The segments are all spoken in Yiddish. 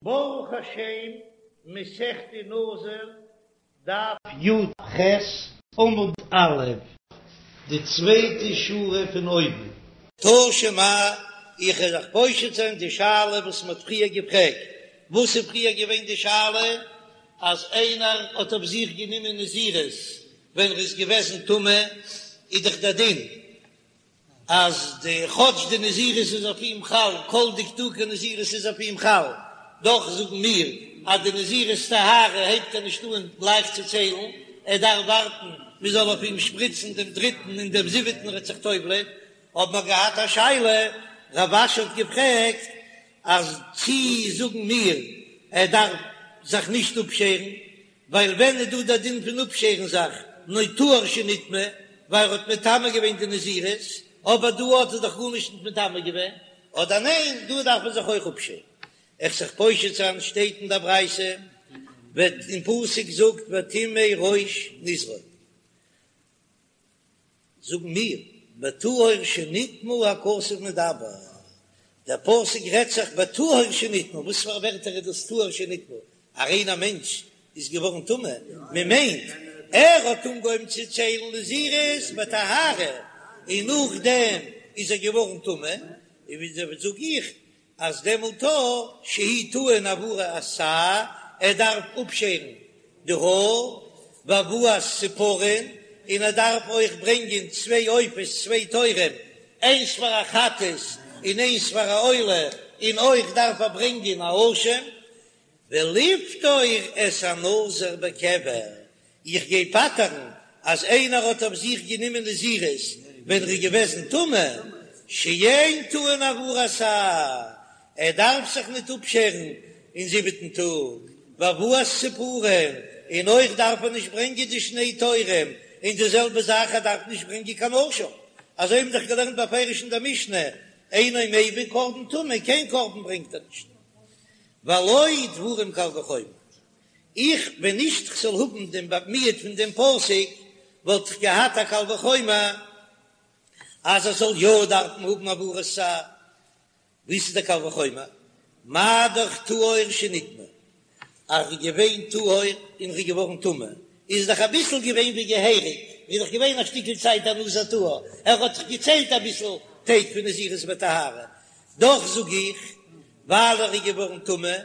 ברוך השם, מסכת נזיר, דף י"ח, עמוד א', די צווייטע שורה פון אויבן. תא שמע, איך וועל זיך פושט זיין די שאלה וואס מען האט פריער געפרעגט, וואס איז פריער געווען די שאלה? אז איינער האט אויף זיך גענומען נזירות ווען ער איז געוועזן טמא, איז דאך דער דין אז די כאטש די נזירות איז אויף אים חל, כל דקדוקי נזירות איז אויף אים חל, דאך זאגן מיר אז די נזירות טהרה הייבט ער נישט אן גלייך צו ציילן, ער דארף ווארטן מען זאל אויף אים שפריצן דעם דריטן און דעם זיבעטן ער וועט זיך טובל'ען. האבן מיר געהאט א שאלה, רב אשי האט געפרעגט אז צי זאגן מיר ער דארף זיך נישט אפשערן, ווייל ווען איז דא דער דין פון אפשערן זיך נאר טהור שנטמא, ווייל ער האט מטמא געווען די נזירות, אבער דא האט ער דאך גארנישט נישט מטמא געווען, אדער ניין דא דארף מען זיך אויך אפשערן. איך זיך פושט זיין שטייט אין דער ברייתא, וועט אין פסוק זאגט וטמא ראש נזרו. זאגן מיר, בטהור שנטמא הכתוב מדבר, דער פסוק רעדט זיך בטהור שנטמא, וואס פאר ווערטער איז דאס טהור שנטמא? א ריינער מענטש איז געווארן טמא? מען מיינט ער האט אנגעהויבן צו ציילן נזירות בטהרה און נאכדעם איז ער געווארן טמא, און וויאזוי זאג איך אז דעמאלט שהוא טעון העברת שער, ער דארף אפשערן די האר, והבאת ציפורין, און ער דארף אויך ברענגען צוויי עופות, צוויי תורים, איינס פאר א חטאת און איינס פאר א עולה, און אויך דארף ער ברענגען א אשם, ולפטור את הנזיר בקבר, איך גיי פטר'ן אז איינער האט אויף זיך גענומען נזירות ווען ער איז געוועזן טמא, שאין טעון העברת שער, ער דארף זיך ניט אפשערן אין זיבעטן טאג, והבאת ציפורין, און אויך דארף ער נישט ברענגען די שני תורים, און די זעלבע זאך ער דארף נישט ברענגען קיין אשם, אזוי האבן דאך געלערנט בפירוש אין דער משנה, אינו מביא קרבן טומאה, קיין קרבן ברענגט ער נישט, והלא דברים קל וחומר. איך ווען נישט כ'זאל האבן דעם מיעוט פון דעם פסוק וואלט איך געהאט א קל וחומר אז ער זאל יא דארפן האבן העברת שער. וואס איז דער קל וחומר? מה דאך טהור שנטמא, אז ר'איז געווען טהור און ר'איז געווארן טמא, איז דאך אביסל געווען ווי געהעריג, איז דאך געווען א שטיקל צייט א נזיר טהור, ער האט דאך געציילט אביסל טעג פון נזירות בטהרה, דאך זאג איך ווייל ער איז געווארן טמא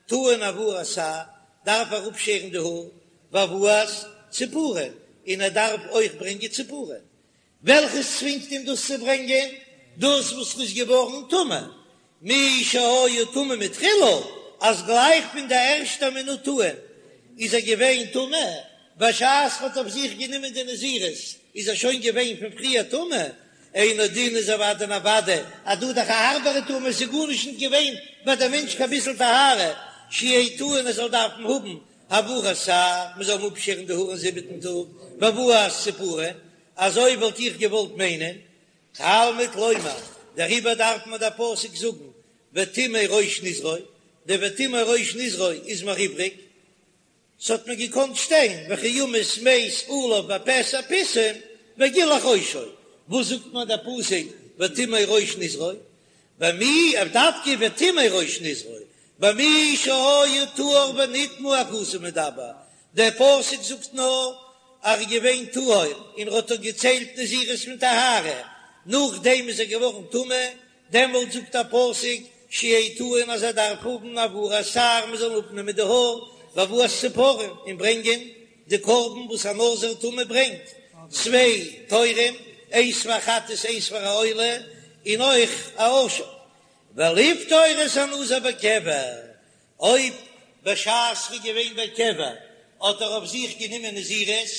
טעון העברת שער, דארף ער אפשערן די האר, והבאת ציפורין, און ער דארף אויך ברענגען ציפורין. וועלכעס צווינגט אים דאס צו ברענגען? דאס וואס ר'איז געווארן טמא, מי שהיה טמא מתחילה, אז גלייך פון די ערשטע מינוט אן איז ער געווען טמא, בשעת ר'האט אויף זיך גענומען די נזירות איז ער שוין געווען פון פריער טמא, אינו דין איז אוודאי און אוודאי אז דא דאך א הארבערע טומאה, עס איז גארנישט נישט געווען ביי דעם מענטש קיין ביסל טהרה, שיהא טעון ער זאל דארפן האבן העברת שער, מען זאל אים אפשערן די האר אין זיבעטן טאג, והבאת ציפורין, אזוי וואלט איך געוואלט מיינען, תלמוד לומר, דעריבער דארף מיר דער פסוק זאגן וטמא ראש נזרו, די וטמא ראש נזרו איז מיר איבריג, ס'האט מיר געקאנט שטיין וכי ימות מת עליו בפתע פתאום וגילח ראשו, וואס זאגט מיר דער פסוק וטמא ראש נזרו? במי אויף דווקא וטמא ראש נזרו, במי שהיה טהור ונטמא הכתוב מדבר, דער פסוק זאגט נאר אז ער איז געווען טהור און ער האט דאך געציילט נזירות פון טהרה, נאכדעם איז ער געווארן טמא, דעמאלט זאגט א פסוק שיהא טעון אז ער דארף האבן העברת שער מען זאל אפנעמען די האר והבאת ציפורים און ברענגען די קרבן וואס א נזיר טמא ברענגט צוויי תורים איינס פאר חטאת איינס פאר א עולה און אויך א אשם ולפטור את הנזיר בקבר אויב בשעת ר'איז געווען בקבר האט ער אויף זיך גענומען נזירות,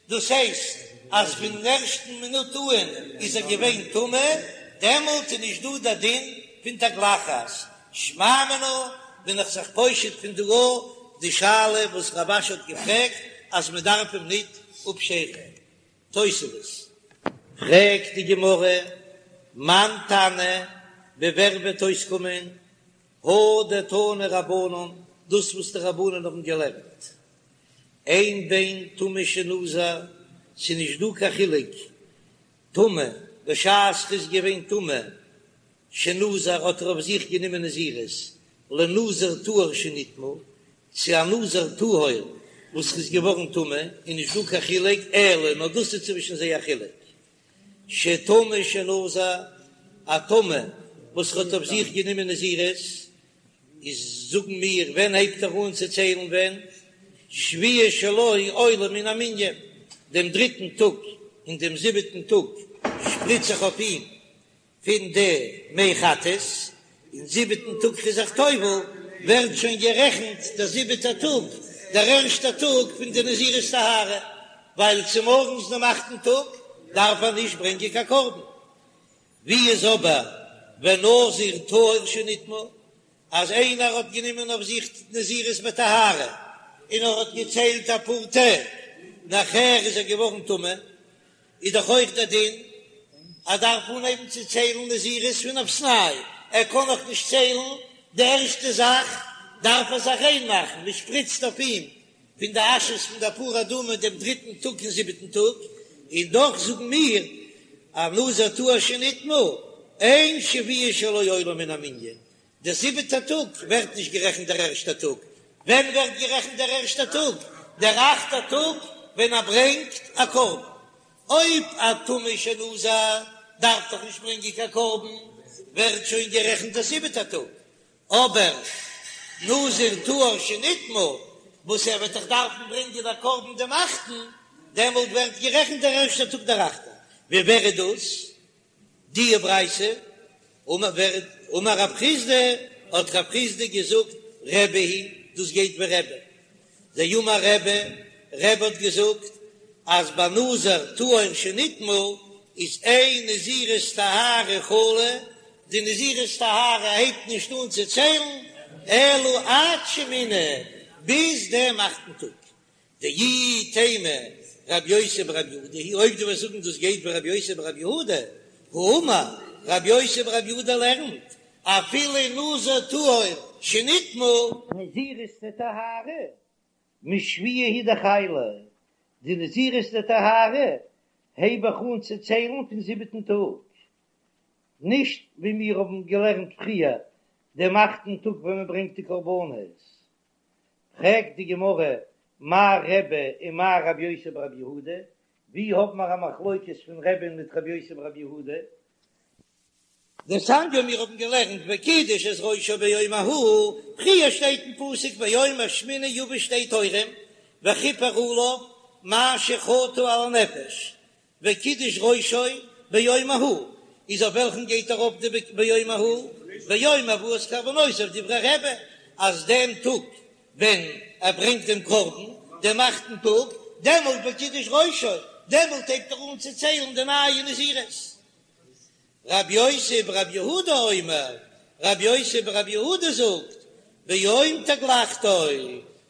דאס הייסט אז פון ערשטן מינוט אהן איז ער געווען טמא, דעמאלט איז נישט דא דער דין פון תגלחת. שמע מינה בין איך זיך פושט פון דא די שאלה וואס רב אשי האט געפרעגט אז מען דארף אים ניט אפשערן. תוספות. פרעגט די גמרא, מאן תנא, ווי ווער וועט אויסקומען הא דתנו רבנן, דאס וואס די רבנן האבן געלערנט, אין בין טמא שנזר, ס'איז נישט דא קיין חילוק, טמא, בשעת ר'איז געווען טמא, שנזר האט ער אויף זיך גענומען נזירות, לנזיר טהור שנטמא, צו א נזיר טהור וואס איז געווארן טמא, איז נישט דא קיין חילוק, אלא נאר דאס איז צווישן זיי א חילוק, שטמא שנזר, א טמא וואס האט אויף זיך גענומען נזירות, איז זאגן מיר ווען הייבט ער אן צו ציילן ווען שביעי שלו עולה מן המנין, דעם דריטן טאג און דעם זיבעטן טאג שפריץ זיך אויף אים פון די מי חטאת, און זיבעטן טאג איז זיך טובל, ווערט שוין גערעכנט דער זיבעטער טאג דער ערשטער טאג פון די נזירות טהרה, ווייל צומארגנס דעם אכטן טאג דארף ער נישט ברענגען קיין קרבן. ווי איז אבער ונזיר טהור שנטמא, אז איינער האט גענומען אויף זיך נזירות בטהרה און ער האט געציילט אפאר טעג, נאכער איז ער געווארן טמא, איז דאך אויך דער דין ער דארף אנהייבן צו ציילן נזירות פון אויפסניי, ער קען נאך נישט ציילן, די ערשטע זאך דארף ער זיך ריין מאכן, מען שפריצט אויף אים פון די אשעס פון די פרה אדומה דעם דריטן טאג און זיבעטן טאג, און דאך זאגן מיר א נזיר טהור שנטמא, אין שביעי שלו עולה מן המנין, דער זיבעטער טאג ווערט נישט גערעכנט דער ערשטער טאג, ווען ווערט גערעכנט דער ערשטער טאג? דער אכטער טאג ווען ער ברענגט א קרבן, אויב א טמא שנזר דארף דאך נישט ברענגען קיין קרבן, ווערט שוין גערעכנט דער זיבעטער טאג, אבער נזיר טהור שנטמא וואס ער וועט דאך דארפן ברענגען א קרבן דעם אכטן, דעמאלט ווערט גערעכנט דער ערשטער טאג דער אכטער. ווי ווער איז דאס די ברייתא? אמר רב חסדא, האט רב חסדא געזאגט, רבי היא, דאס גייט ווי רבי. דאמר רבי, רבי האט געזאגט אז ביי נזיר טהור שנטמא איז אין נזירות טהרה חלה, די נזירות טהרה הייבט נישט אן צו ציילן אלא עד שמיני, ביז דעם אכטן טאג. דאי תימא רבי יוסי ברבי יהודה היא, אויב דו וועסט זאגן דאס גייט ווי רבי יוסי ברבי יהודה, האמר רבי יוסי ברבי יהודה לערנט אפילו נזיר טהור שנטמא, נזירות דטהרה משביעי הוא דחיילא, די נזירות דטהרה הייב איך אן צו ציילן פון זיבעטן טאג, נישט ווי מיר האבן געלערנט פריער דעם אכטן טאג ווען מען ברענגט די קרבנות. פרעגט די גמרא, מאי רבי ומאי רבי יוסי ברבי יהודה, ווי האבן מיר א מחלוקת פון רבי'ן מיט רבי יוסי ברבי יהודה? דתניא מיר האבן געלערנט וקידש את ראשו ביום ההוא, פריער שטייט אין פסוק ביום השמיני יביא שתי תורים וכיפר עליו מה שחטא על הנפש, וקידש ראשו ביום ההוא, איז אויף וועלכן גייט ארויף די ביום ההוא? ביום הבאת קרבנותיו דברי רבי, אז דעם טאג ווען ער ברענגט דעם קרבן, דעם אכטן טאג, דעמאלט וקידש ראשו, דעמאלט הייבט ער אן צו ציילן די נייע נזירות. רבי יוסי ברבי יהודה אומר, רבי יוסי ברבי יהודה זאגט, ביום תגלחתו,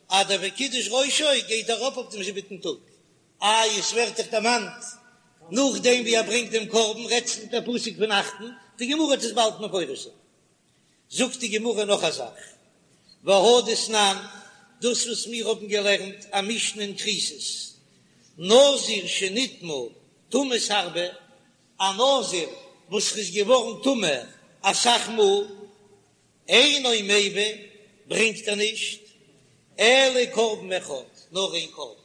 אז דער וקידש ראשו גייט ארויף אויף דעם זיבעטן טאג, איי עס ווערט דאך דערמאנט נאכדעם ווי ער ברענגט דעם קרבן, רעדט זיך דער פסוק פון אכטן, די גמרא האט עס באלד מפרש זיין. זאגט די גמרא נאך א זאך, והא דתנן, דאס וואס מיר האבן געלערנט א משנה אין כריתות, נזיר שנטמא טומאות הרבה, א נזיר וואס איז געווארן טמא אסאך מאל, אינו מביא, ברענגט ער נישט, אלא קרבן אחד, נאר איין קרבן.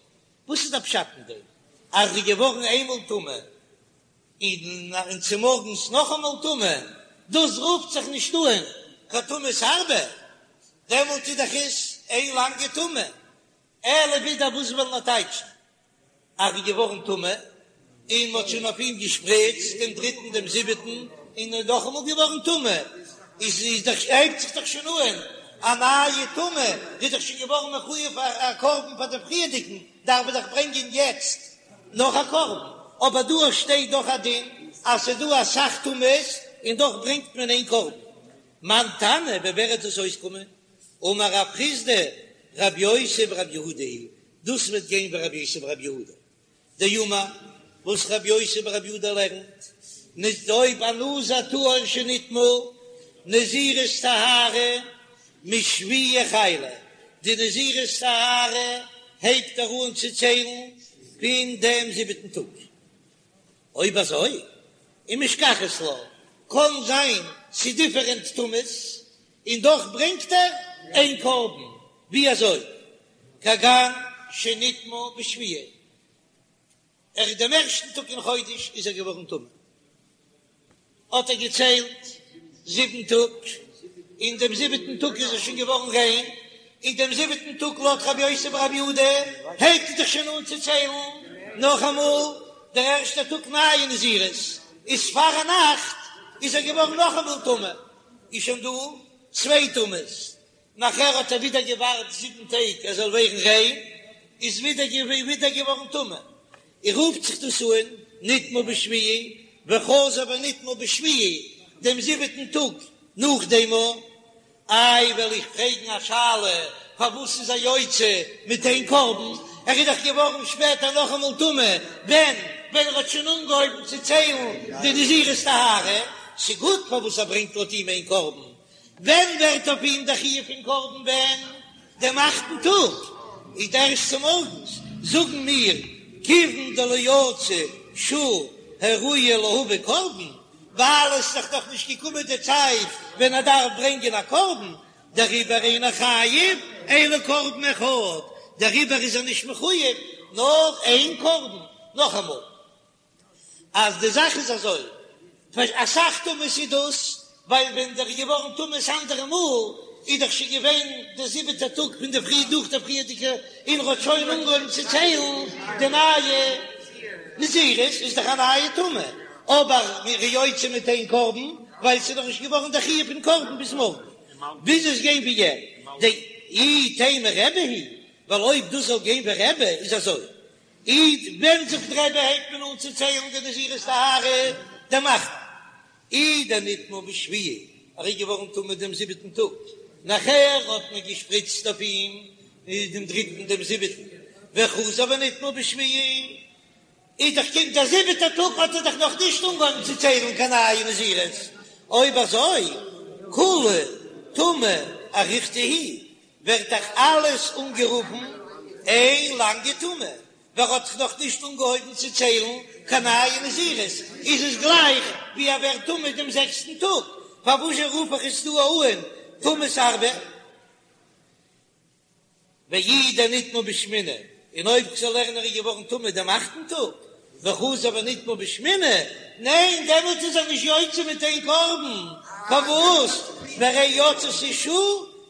וואס איז דער פשט אין דעם אז ער איז געווארן איינמאל טמא און צומארגנס נאכאמאל טמא, דאס רופט זיך נישט אן קיין טומאת הרבה, דעמאלט איז דאך עס איין לאנגע טומאה, אלא ווידער וואס וויל מען טייטשן אז ער איז געווארן טמא, און מ'האט שוין אויף אים געשפריצט דעם דריטן דעם זיבעטן, און ער איז נאכאמאל געווארן טמא, איז איז דאך הייבט זיך דאך שוין אן א נייע טומאה, ער איז דאך שוין געווארן מחויב א קרבן פאר דעם פריערדיגן, דארף ער דאך ברענגען יעצט נאך א קרבן, אבער דא שטייט דאך א דין אז ס'איז דא אסאך טומאות און דאך ברענגט מען איין קרבן. מאן תנא, ווי ווער וועט עס אויסקומען? אמר רב חסדא, רבי יוסי ברבי יהודה היא, דאס וועט גיין ווי רבי יוסי ברבי יהודה דאמר, וואס רבי יוסי ברבי יהודה לערנט, נישט אויב א נזיר טהור שנטמא, נזירות טהרה משביעי חיילא, די נזירות טהרה הייבט ער אן צו ציילן פון דעם זיבעטן טאג. אויב אזוי, ומשכחת לה, קען זיין ס'איז דיפערענט טומאות. און דאך ברענגט ער איין קרבן, ווי אזוי? כגון שנטמא בשביעי, ער איז דעם ערשטן טאג אין חודש איז ער געווארן טמא, האט ער געציילט זיבן טאג, און דעם זיבעטן טאג איז ער שוין געווארן ריין, און דעם זיבעטן טאג לויט רבי יוסי ברבי יהודה הייבט ער זיך שוין אן צו ציילן נאכאמאל דער ערשטער טאג נייע נזירות, איז פארנאכט איז ער געווארן נאכאמאל טמא, איז שוין דא צוויי טומאות, נאכער האט ער ווידער געווארט זיבן טעג ער זאל ווערן ריין, איז ווידער ווידער געווארן טמא, און רופט זיך דאס אן נטמא בשביעי וחזר ונטמא בשביעי דעם זיבעטן טאג נאך דעם. איי וועל איך פרעגן א שאלה, פארוואס איז ער יוצא מיט איין קרבן, ער איז דאך געווארן שפעטער נאכאמאל טמא, ווען ווען ער האט שוין אנגעהויבן צו ציילן די נזירות טהרה, ס'גוט פארוואס ער ברענגט לויט אים איין קרבן, ווען ווערט אויף אים דער חיוב פון קרבן ווען? דעם אכטן טאג איז ערשט צומארגנס, זאגן מיר, כיוון דלא יצא שעה הראויה להביא קרבן, ווייל עס איז דאך נאך נישט געקומען די צייט ווען ער דארף ברענגען א קרבן, דעריבער אינו חייב אלא קרבן אחד, דעריבער איז ער נישט מחויב נאר איין קרבן, נאכאמאל. אז די זאך איז אזוי, אסאך טומאות איז דאס, ווייל ווען דער איז געווארן טמא ס'אנדערע מאל, איז דאך שוין געווען די זיבעטע טאג פון די פרי דורך די פריערדיגע, און ער האט שוין אנגעהויבן צו ציילן די נייע נזירות, איז דאך א נייע טומאה, אבער מ'איז יוצא מיט איין קרבן, ווייל ס'איז נאך נישט געווארן די חיוב פון קרבן ביז מארגן, ביז עס גיין ווי ער, דאי תימא רבי היא, ווייל אויב דאס זאל גיין ווי רבי איז אזוי, איז ווען זאגט רבי הייבט מען אן צו ציילן די נזירות טהרה דעם אכטן אי דנטמא בשביעי ער איז געווארן טמא דעם זיבעטן טאג נאכער האט מען געשפריצט אויף אים דעם דריטן דעם זיבעטן וחזר ונטמא בשביעי איז דאך קומט דער זיבעטער טאג האט ער דאך נאך נישט אנגעהויבן צו ציילן קיין נייע נזירות אויב אזוי כולה טומאה אריכתא היא ווערט דאך אלעס אנגערופן איין לאנגע טומאה, ווייל ער האט דאך נאך נישט אנגעהויבן צו ציילן קיין נייע נזירות, איז עס גלייך ווי ער ווערט טמא דעם זעקסטן טאג, פארוואזשע רוף איך עס דא אן טומאות הרבה? ואי דנטמא בשמיני, און אויב כ'זאל לערנען ער איז געווארן טמא דעם אכטן טאג, וחזר ונטמא בשמיני, ניין דעמאלט איז ער נישט יוצא מיט איין קרבן, פארוואס? והרי יצתה שעה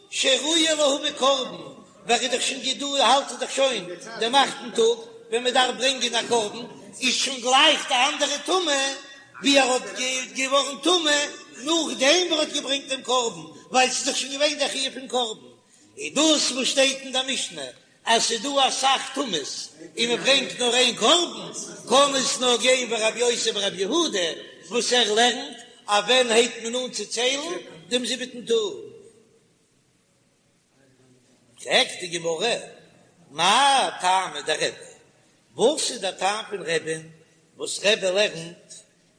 שראויה להביא קרבן, ווייל ער איז דאך שוין געדא האלט ער דאך שוין דעם אכטן טאג ווען מען דארף ברענגען א קרבן, איז שוין גלייך די אנדערע טומאה ווי ער האט געווארן טמא נאכדעם ווי ער האט געברענגט דעם קרבן, ווייל ס'איז דאך שוין געווען דער חיוב פון קרבן, איז דאס וואס שטייט אין דער משנה אז ס'איז דא אסאך טומאות און מען ברענגט נאר איין קרבן, קען עס נאר גיין ווי רבי יוסי ברבי יהודה וואס ער לערנט אז ווען הייבט מען אן צו ציילן דעם זיבעטן טאג. פרעגט די גמרא, מאי טעמא דרבי, וואס איז דער טעם פון רבי'ן וואס רבי לערנט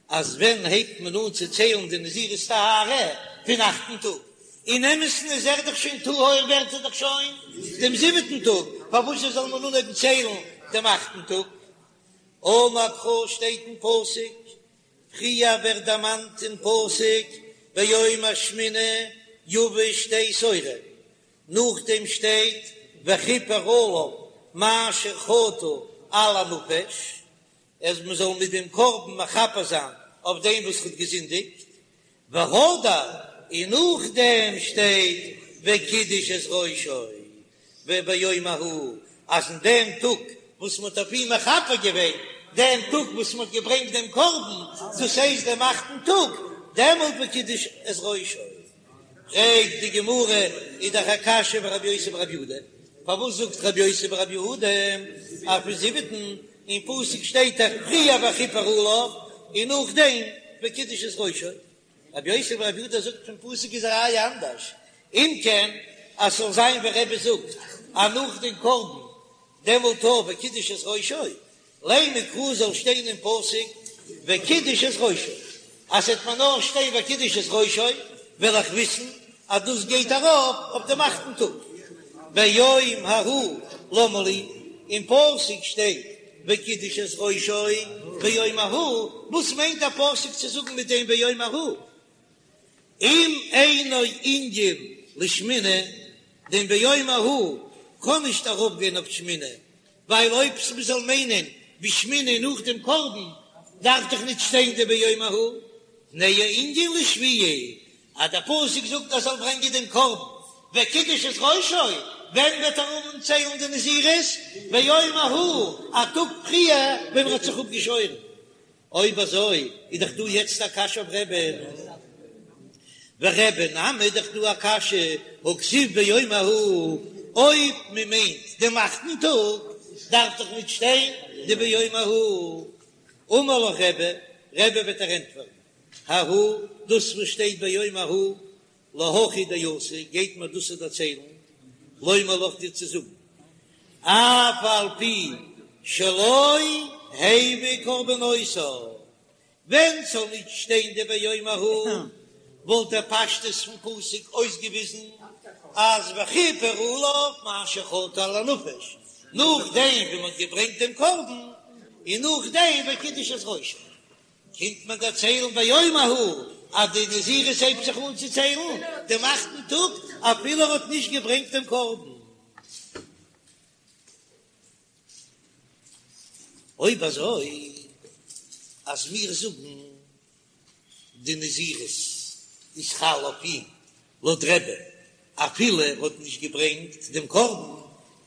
אז ווען הייבט מען אן צו ציילן די נזירות טהרה? פון אכטן טאג. אין אמת'ן איז ער דאך שוין טהור ווערט ער דאך שוין דעם זיבעטן טאג, פארוואס זאל מען אנהויבן ציילן דעם אכטן טאג? אמר קרא שטייט אין פסוק, פריער ווערט דערמאנט אין פסוק ביום השמיני יביא שתי תורים, נאכדעם שטייט וכפר עליו מאשר חטא על הנפש, אז מען זאל מיט דעם קרבן מכפר זיין אויף דעם וואס האט געזינדיגט, והדר, און נאכדעם שטייט וקידש את ראשו, וביום ההוא, אז אין דעם טאג וואס מען האט אויף אים מכפר געווען, דעם טאג וואס מען האט געברענגט דעם קרבן, דאס הייסט דעם אכטן טאג, דעמאלט וקידש את ראשו. פרעגט די גמרא, איז דאך א קשיא אויף רבי יוסי ברבי יהודה, פארוואס זאגט רבי יוסי ברבי יהודה אז פון זיבעטן, אין פסוק שטייט דאך פריער וכפר עליו און נאכדעם וקידש את ראשו, רבי יוסי ברבי יהודה זאגט פון פסוק איז א ראיה אנדערש, אם כן אז ס'זאל זיין ווי רבי זאגט אז נאך דעם קרבן דעמאלט אויך וקידש את ראשו, לימא קרא זאל שטיין אין פסוק וקידש את ראשו, אז ס'עט מיר נאר שטיין וקידש את ראשו וועל איך וויסן אז דאס גייט ארויף אויף דעם אכטן טאג. ביום ההוא למה לי, אין פסוק שטייט וקידש את ראשו ביום ההוא, וואס מיינט דער פסוק צו זאגן מיט דעם ביום ההוא? אם אינו ענין לשמיני, דעם ביום ההוא קען נישט ארויפגיין אויף שמיני, ווייל אויב מ'זאל מיינען בשמיני נאך דעם קרבן, דארף דאך נישט שטיין די ביום ההוא, תנהו ענין לשביעי, אז דער פסוק זאגט ער זאל ברענגען דעם קרבן וקידש את ראשו, ווען וועט ער אנהויבן ציילן די נזירות? ביום ההוא, א טאג פריער ווען ער האט זיך אפגעשוירן. אויב אזוי איז דאך דא יעצט א קשיא אויף רבי'ן, ורבי נמי איז דאך דא א קשיא, הכתיב ביום ההוא, אויב מען מיינט דעם אכטן טאג דארף דאך נישט שטיין די ביום ההוא. אמר לך רבי, רבי וועט דיר ענטפערן, ההוא, דאס וואס שטייט ביום ההוא, להכי דאתא, גייט מיר דאס דערציילן, לומר לך דיר צו זאגן, אף על פי שלא הביא קרבנותיו, ווען ס'זאל נישט שטיין די ביום ההוא, וואלט דער פשטות פון פסוק אויסגעוויזן אז וכיפר עליו מאשר חטא על הנפש, נאכדעם ווי מ'האט געברענגט דעם קרבן, און נאכדעם וקידש את ראשו. קומט מען דערציילן ביום ההוא אז די נזירות הייבט זיך אן צו ציילן דעם אכטן טאג אפילו ער האט נישט געברענגט דעם קרבן. אויב אזוי אז מיר זאגן די נזירות איז חל אויף אים לויט רבי אפילו ער האט נישט געברענגט דעם קרבן,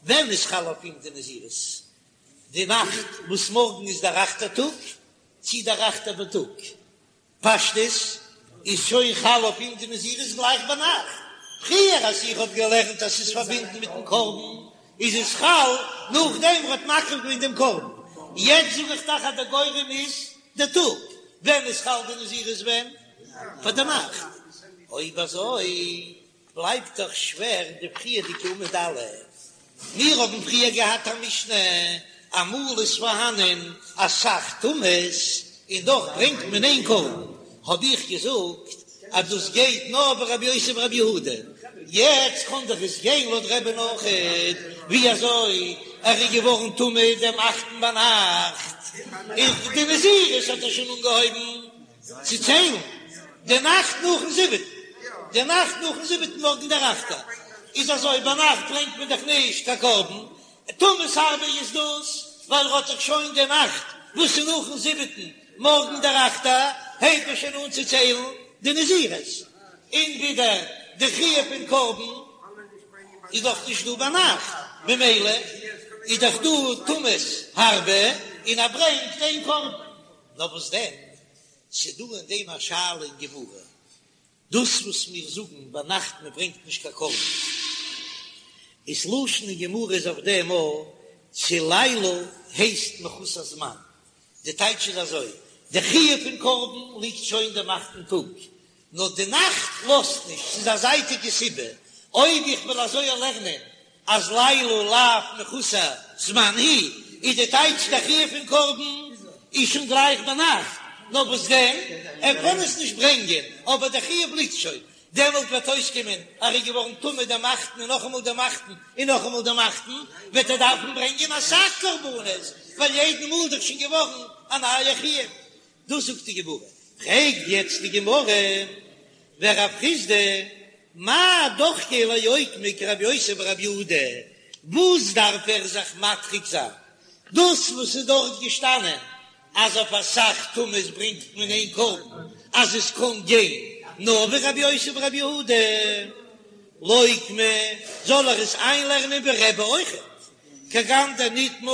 ווען איז חל אויף אים די נזירות? די נאכט וואס מארגן איז דער אכטער טאג, צי דער אכטער בייטאג, פשטות איז שוין חל אויף אים די נזירות גלייך ביינאכט, פריער אז איך האב געלערנט אז ס'איז פארבינדן מיטן קרבן איז עס חל נאכדעם ער האט מקריב געווען דעם קרבן, יעצט זאג איך דאך אז דער גורם איז דער טאג, ווען איז חל די נזירות ווען? פאר די נאכט, אויב אזוי בלייבט דאך שווער די פריערדיגע עמוד א'. מיר האבן פריער געהאט א משנה, אמאל איז פארהאנען אסאך טומאות און דאך ברענגט מען איין קרבן, האב איך געזאגט אז דאס גייט נאר ווי רבי יוסי ברבי יהודה, יעצט קען דאך עס גיין לויט רבי'ן אויכעט, ווי אזוי ער איז געווארן טמא דעם אכטן ביינאכט, און די נזירות האט ער שוין אנגעהויבן. צו ציילן די נאכט נאכן זיבעטן, די נאכט נאכן זיבעטן מארגן דער אכטער, איז אזוי, ביינאכט ברענגט מען דאך נישט קיין קרבן, טומאות הרבה איז דאס, ווייל ער האט דאך שוין די נאכט וואס איז נאכן זיבעטן, מארגן דער אכטער, הייבט מען שוין אן צו ציילן די נזירות, און ווידער די חיוב פון קרבן איז דאך נישט דא ביינאכט, ממילא איז דאך דא טומאות הרבה, און ער ברענגט איין קרבן. נאר וואס דען, ס'דא אין דעם א שאלה אין גמרא, דאס וואס מיר זאגן ביינאכט מען ברענגט נישט קיין קרבן, איז לשון אין גמרא איז אויף דעם א צו לילה הייסט מחוסר זמן, די טייטש איז אזוי, די חיוב פון קרבן ליגט שוין דעם אכטן טאג, נאר די נאכט לאזט נישט, ס'איז א זייטיגע סיבה, אויב איך וועל אזוי לערנען אז לילה לאו מחוסר זמן היא, איז די טייטש די חיוב פון קרבן איז שוין גלייך ביינאכט, נאר וואס דען, ער קען עס נישט ברענגען, אבער די חיוב ליגט שוין, דעמאלט וועט אויסקומען אז ער איז געווארן טמא דעם אכטן און נאכאמאל דעם אכטן און נאכאמאל דעם אכטן, וועט ער דארפן ברענגען אסאך קרבנות, ווייל יעדן מאל איז דאך שוין געווארן א נייע חיוב. דאס זאגט די גמרא, פרעגט יעצט די גמרא, ורב חסדא מאי דוחקיה לאוקמי כרבי יוסי ברבי יהודה, וואס דארף ער זיך מדחיק זיין, דאס וואס איז דארט געשטאנען אז אויף אסאך טומאות ברענגט מען איין קרבן, אז עס קען גיין נאר ווי רבי יוסי ברבי יהודה, לוקמה, זאל ער עס איינלערנען ווי רבי אויכעט, כגון דנטמא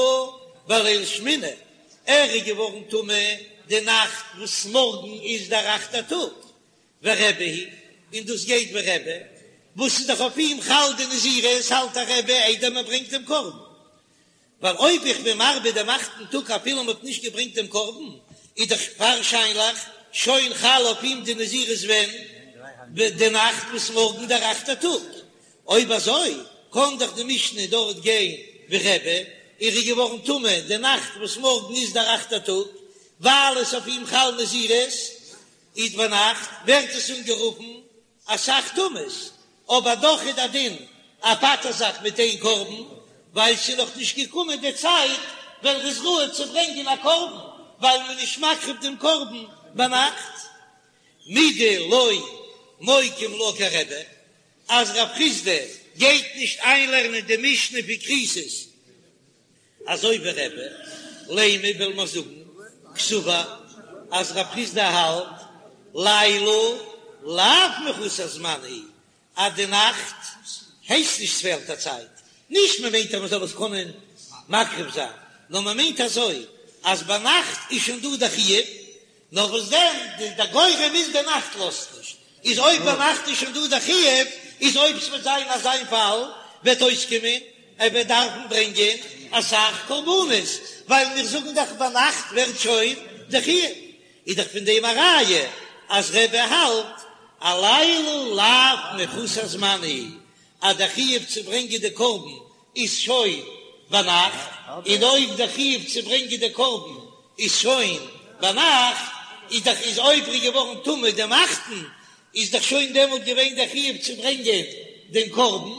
בליל שמיני, ער איז געווארן טמא די נאכט וואס מארגן איז דער אכטער טאג, ורבי היא, און דאס גייט ווי רבי, וואס איז דאך אויף אים חל די נזירות, האלט דאך רבי איידער מען ברענגט דעם קרבן, ווייל אויב איך בין מרבה דעם אכטן טאג אפילו מען האט נישט געברענגט דעם קרבן, איז דאך ווארשיינליך שוין חל אויף אים די נזירות ווען? די נאכט וואס מארגן דער אכטער טאג, אויב אזוי קען דאך די משנה דארט גיין ווי רבי, ער איז געווארן טמא די נאכט וואס מארגן איז דער אכטער טאג, ווייל עס אויף אים חל נזירות, איז ביינאכט ווערט עס אנגערופן אסאך טומאות, אבער דאך איז דער דין ער פטר'ט זיך מיט איין קרבן, ווייל ס'איז נאך נישט געקומען די צייט ווען ר'איז ראוי צו ברענגען א קרבן, ווייל מ'איז נישט מקריב דעם קרבן ביינאכט. מדלא. מוקים לה כרבי, אז רב חסדא גייט נישט איינלערנען די משנה פון כריתות אזוי ווי רבי, לימא וועל מיר זאגן קסבר אז רב חסדא האלט לילה לאו מחוסר זמן הוא, אז די נאכט הייסט נישט ס'פעלט א צייט, נישט מען מיינט אז מען זאל עס קענען מקריב זיין, נאר מען מיינט אזוי אז ביינאכט איז שוין דא די חיוב, נאר וואס דען, די גורם איז די נאכט לאזט נישט, איז אויב ביינאכט איז שוין דא די חיוב, איז אויב ס'וועט זיין אזא פאל וועט אויסקומען ער וועט דארפן ברענגען אסאך קרבנות, ווייל מיר זאגן דאך ביינאכט ווערט שוין די חיוב, איז דאך פון דעם א ראיה אז רבי האלט הלילה לאו מחוסר זמן הוא, אז די חיוב צו ברענגען די קרבן איז שוין ביינאכט, און אויב די חיוב צו ברענגען די קרבן איז שוין ביינאכט, איז דאך איז אויב ער איז געווארן טמא דעם אכטן, איז דאך שוין דעמאלט געווען דער חיוב צו ברענגען דעם קרבן,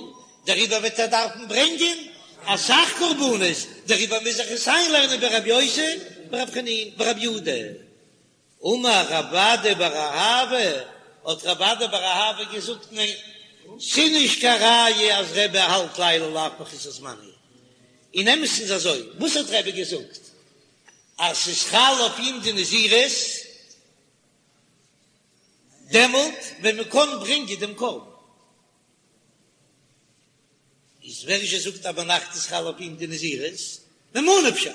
דעריבער וועט ער דארפן ברענגען אסאך קרבנות, דעריבער מוז איך עס איינלערנען ברבי יוסי ברבי חנינא ברבי יהודה. אמר רב אדא בר אהבה, האט רב אדא בר אהבה געזאגט, ניין, ס'נישט קיין ראיה אז רבי האלט לילה לאו מחוסר זמן הוא. אין אמת'ן איז אזוי, וואס האט רבי געזאגט? אז ס'איז חל אויף אים די נזירות דעמאלט ווען מ'קען ברענגען דעם קרבן. איז ווער זשע זאגט אז ביינאכט איז חל אויף אים די נזירות? ממה נפשך,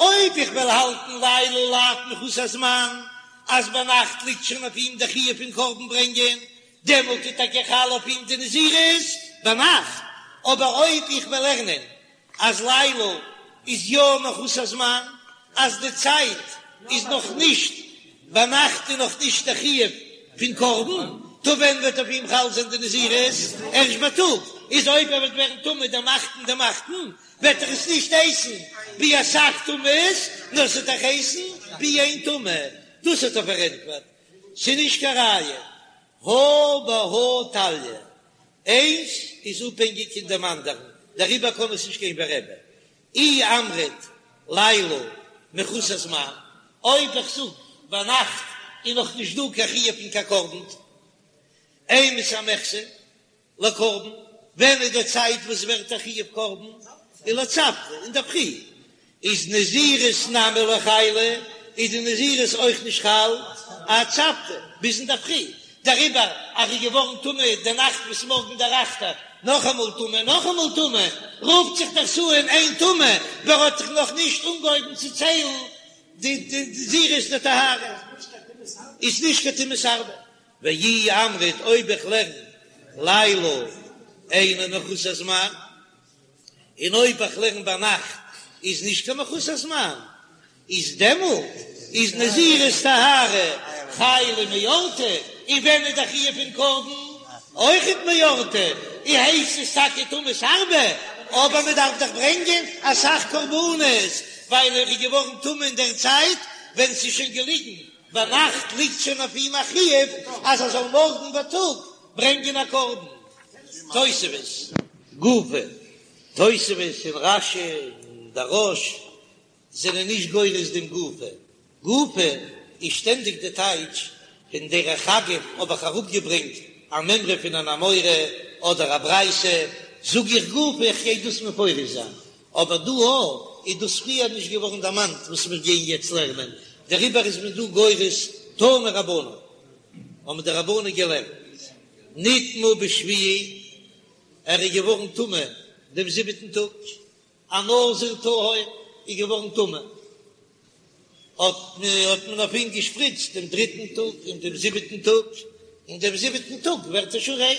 אויב איך וועל האלטן לילה לאו מחוסר זמן, אז ביינאכט ליגט שוין אויף אים די חיוב פון קרבן ברענגען, דעמאלט איז טאקע חל אויף אים די נזירות ביינאכט, אבער אויב איך וועל לערנען אז לילה איז יא מחוסר זמן, אז די צייט איז נאך נישט ביינאכט איז נאך נישט די חיוב פון קרבן, טא ווען וועט אויף אים חל זיין די נזירות? ערשט בייטאג, איז אויב ער וועט ווערן טמא דעם אכטן דעם אכטן וועט ער עס נישט הייסן ווי אסאך טומאות, נאר ס'וועט דאך הייסן ווי איין טומאה, דאס האט ער פארענטפערט, ס'איז נישט קיין ראיה, הא בהא תליא, איינס איז אפהענגיק אין דעם אנדערן, דעריבער קען עס נישט גיין ווי רבי. אי אמרת לילה מחוסר זמן, אויב איך זאג ביינאכט איז נאך נישט דא קיין חיוב פון קיין קרבן, אימתי מיחזי לקרבן, ווען איז די צייט וואס ווערט א חיוב קרבן? ולצפרא אינדערפרי, איז נזירות נמי לא חיילא, איז די נזירות אויך נישט חל עד צפרא ביז אינדערפרי, דעריבער אז ער איז געווארן טמא די נאכט וואס מארגן דער אכטער, נאכאמאל טמא נאכאמאל טמא, רופט זיך דאס אן איין טומאה, ווייל ער האט זיך נאך נישט אנגעהויבן צו ציילן די נזירות דטהרה, איז נישט קיין טומאת הרבה. ואי אמרת אויב איך לערן לילה אינו מחוסר זמן. און אויב איך לערן ביינאכט איז נישט קיין מחוסר זמן, איז דעמאלט איז נזירות טהרה חיילא מאורתא, און ווען איז די חיוב פון קרבן אויכעט מאורתא, און הייסט עס טאקע טומאת הרבה, אבער מען דארף דאך ברענגען אסאך קרבנות, ווייל ער איז געווארן טמא אין דער צייט ווען ס'איז שוין געליגן ביינאכט ליגט שוין אויף אים א חיוב אז ער זאל מארגן בייטאג ברענגען א קרבן. תוספות, גופא, תוספות און רש"י און דער רא"ש זענען נישט גורס דעם גופא. גופא איז שטענדיג די טייטש פון דרך אגב האב איך אראפגעברענגט א מימרא פון אן אמורא אדער א ברייתא, זאג איך גופא איך גיי דאס מפרש זיין, אבער דא א איז דאס פריער נישט געווארן דערמאנט וואס מיר גייען יעצט לערנען, דעריבער איז מען דא גורס תנו רבנן, האבן די רבנן געלערנט, נטמא בשביעי, ער איז געווארן טמא דעם זיבעטן טאג, א נזיר טהור איז געווארן טמא, האט מען אויף אים געשפריצט דעם דריטן טאג און דעם זיבעטן טאג, און דעם זיבעטן טאג ווערט ער שוין ריין,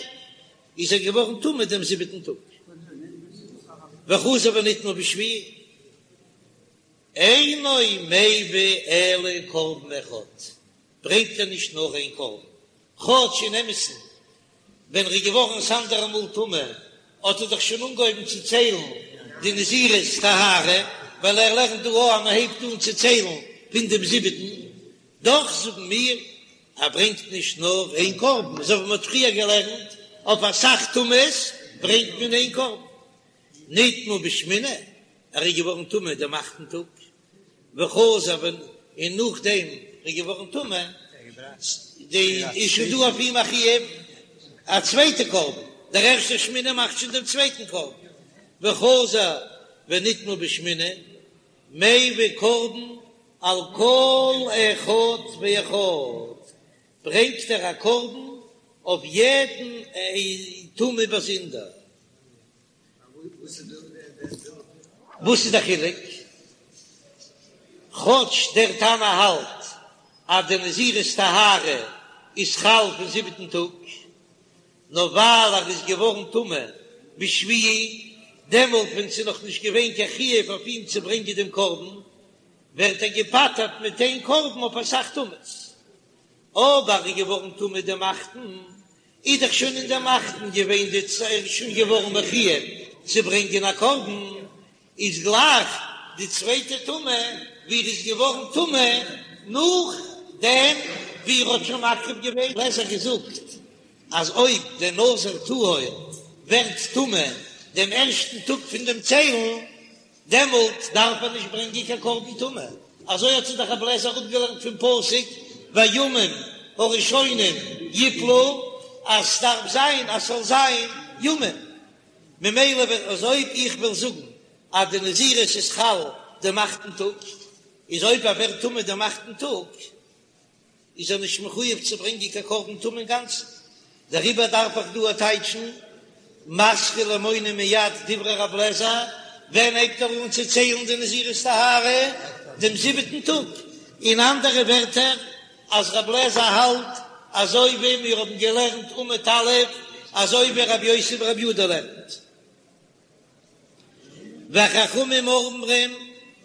איז ער געווארן טמא דעם זיבעטן טאג, וחזר ונטמא בשביעי, אינו מביא אלא קרבן אחד, ברענגט ער נישט נאר איין קרבן, כאטש אין אמת'ן ווען ער איז געווארן ס'אנדערע מאל טמא האט ער דאך שוין אנגעהויבן צו ציילן די נזירות טהרה, ווייל ער לערנט דא אויך אז מען הייבט אן צו ציילן פון דעם זיבעטן, דאך זאגן מיר ער ברענגט נישט נאר איין קרבן, אזוי ווי מען האט פריער געלערנט אויף אסאך טומאות ברענגט מען איין קרבן. נטמא בשמיני, ער איז געווארן טמא דעם אכטן טאג, וחזר און נאכדעם איז געווארן טמא. די איז שוין דא אויף אים א חיוב א צווייטע קרבן, דער ערשטער שמיני מאכט שוין דעם צווייטן קרבן, וחזר ונטמא בשמיני, מביא קרבן על כל אחד ואחד, ברענגט ער א קרבן אויף יעדן טומאה באזונדער. וואס איז די חילוק? כאטש דער תנא האלט אז די נזירות טהרה איז חל פון זיבעטן טאג, נאר ווייל ער איז געווארן טמא בשביעי, דעמאלט ווען ס'איז נאך נישט געווען קיין חיוב אויף אים צו ברענגען דעם קרבן, ווערט ער געפטר'ט מיט איין קרבן אויף אסאך טומאות. אבער ער איז געווארן טמא דעם אכטן, איז דאך שוין אין דעם אכטן געווען די צ ער איז שוין געווארן מחויב צו ברענגען א קרבן, איז גלייך די צווייטע טומאה ווי ער איז געווארן טמא נאך דעם ווי ער האט שוין מקריב געווען. ר' אליעזר געזאגט אז אויב דער נזיר טהור ווערט טמא דעם ערשטן טאג פון דעם ציילן, דעמאלט דארף ער נישט ברענגען קיין קרבן טומאה, אזוי האט זיך דאך רבי אליעזר אפגעלערנט פון פסוק והימים הראשונים יפלו, אז ס'דארף זיין אז ס'זאל זיין ימים, ממילא ווען אז אויב איך וועל זאגן אז די נזירות איז חל דעם אכטן טאג, איז אויב ער ווערט טמא דעם אכטן טאג, איז ער נישט מחויב צו ברענגען קיין קרבן טומאה אינגאנצן, דעריבער דארף איך דא טייטשן מתחיל ומונה מיד דברי רב לעזער, ווען הייבט ער אן צו ציילן די נזירות טהרה? דעם זיבעטן טאג, אין אנדערע ווערטער אז רב לעזער האלט אזוי ווי מיר האבן געלערנט עמוד א', אזוי ווי רבי יוסי ברבי יהודה לערנט. וחכמים אומרים,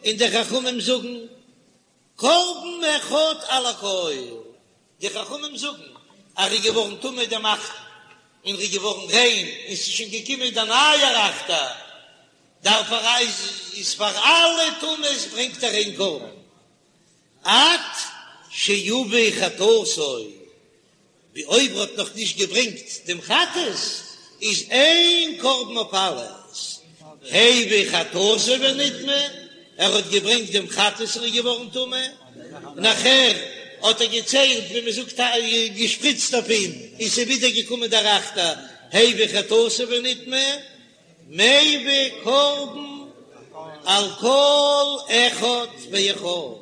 און די חכמים זאגן. קרבן אחד על הכל, די חכמים זאגן אז ער איז געווארן טמא דעם אכטן און ער איז געווארן ריין און ס'איז שוין געקומען דער נייער אכטער, דארף ער איז פאר אלע טומאות ברענגט ער איין קרבן עד שיביא חטאתו. ווי אויב ער האט נאך נישט געברענגט דעם חטאת איז איין קרבן אויף אלעס, הביא חטאתו ונטמא, ער האט געברענגט דעם חטאת און איז געווארן טמא, נאכער האט ער געציילט ווי מען זאגט געשפריצט אויף אים און ס'איז ווידער געקומען דער אכטער, הביא חטאתו ונטמא, מביא קרבן על כל אחד ואחד,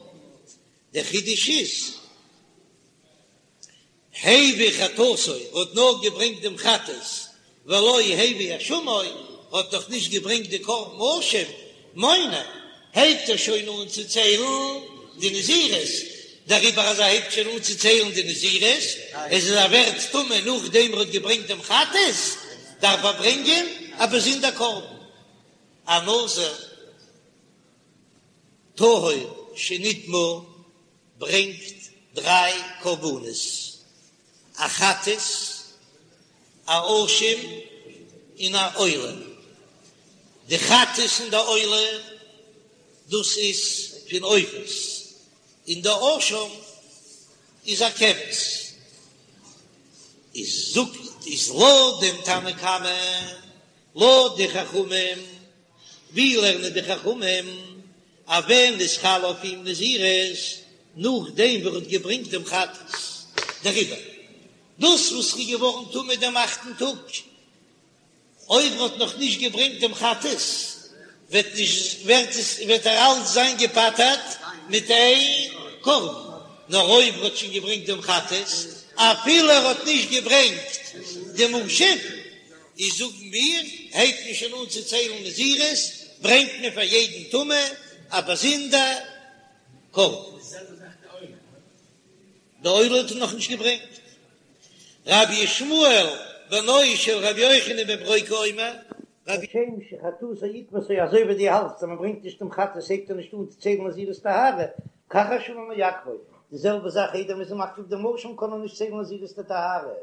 דער חידוש איז. הביא חטאתו האט נאר געברענגט דעם חטאת, ולא הביא אשמו האט נאך נישט געברענגט די קרבן אשם, מונה, הייבט ער שוין אן צו ציילן די נזירות, דעריבער אז ער הייבט שוין אן צו ציילן די נזירות, איז אז ער ווערט טמא נאכדעם ער האט געברענגט דעם חטאת, דארף ער ברענגען א באזונדער קרבן, א נזיר טהור שנטמא ברענגט דריי קרבנות, א חטאת, א אשם, און א עולה. די חטאת און די עולה דאס איז פון עופות, און די אשם איז א כבש. איז זאגט איז לויט דעם תנא קמא, לויט די חכמים, ווי לערנען די חכמים אז ווען איז חל אויף אים נזירות? נאכדעם ווי ער האט געברענגט דעם חטאת. דעריבער דאס וואס ר'איז געווארן טמא דעם אכטן טאג, אויב ר'האט נאך נישט געברענגט דעם חטאת, וועט נישט ווערט עס וועט ער אלץ זיין געפטר'ט מיט איין קרבן, נאר אויב ר'האט שוין געברענגט דעם חטאת, אפילו ער האט נישט געברענגט דעם אשם, איז זאגן מיר, הייבט מען שוין אן צו ציילן נזירות, ברענגט מען פאר יעדן טומאה א באזונדער קרבן. די עולה האט ער נאכנישט געברענגט. רבי ישמעאל בנו של רבי יוחנן בן ברוקה אומר, רבי. כשם שחטאתו עיכבתו אזוי ווי דו האלטסט אז מען ברענגט נישט דעם חטאת הייבט ער נישט אן צו ציילן נזירות טהרה, כך אשמו מעכבו, די זעלבע זאך איידער מען איז מקריב דעם אשם קען ער נישט ציילן נזירות טהרה.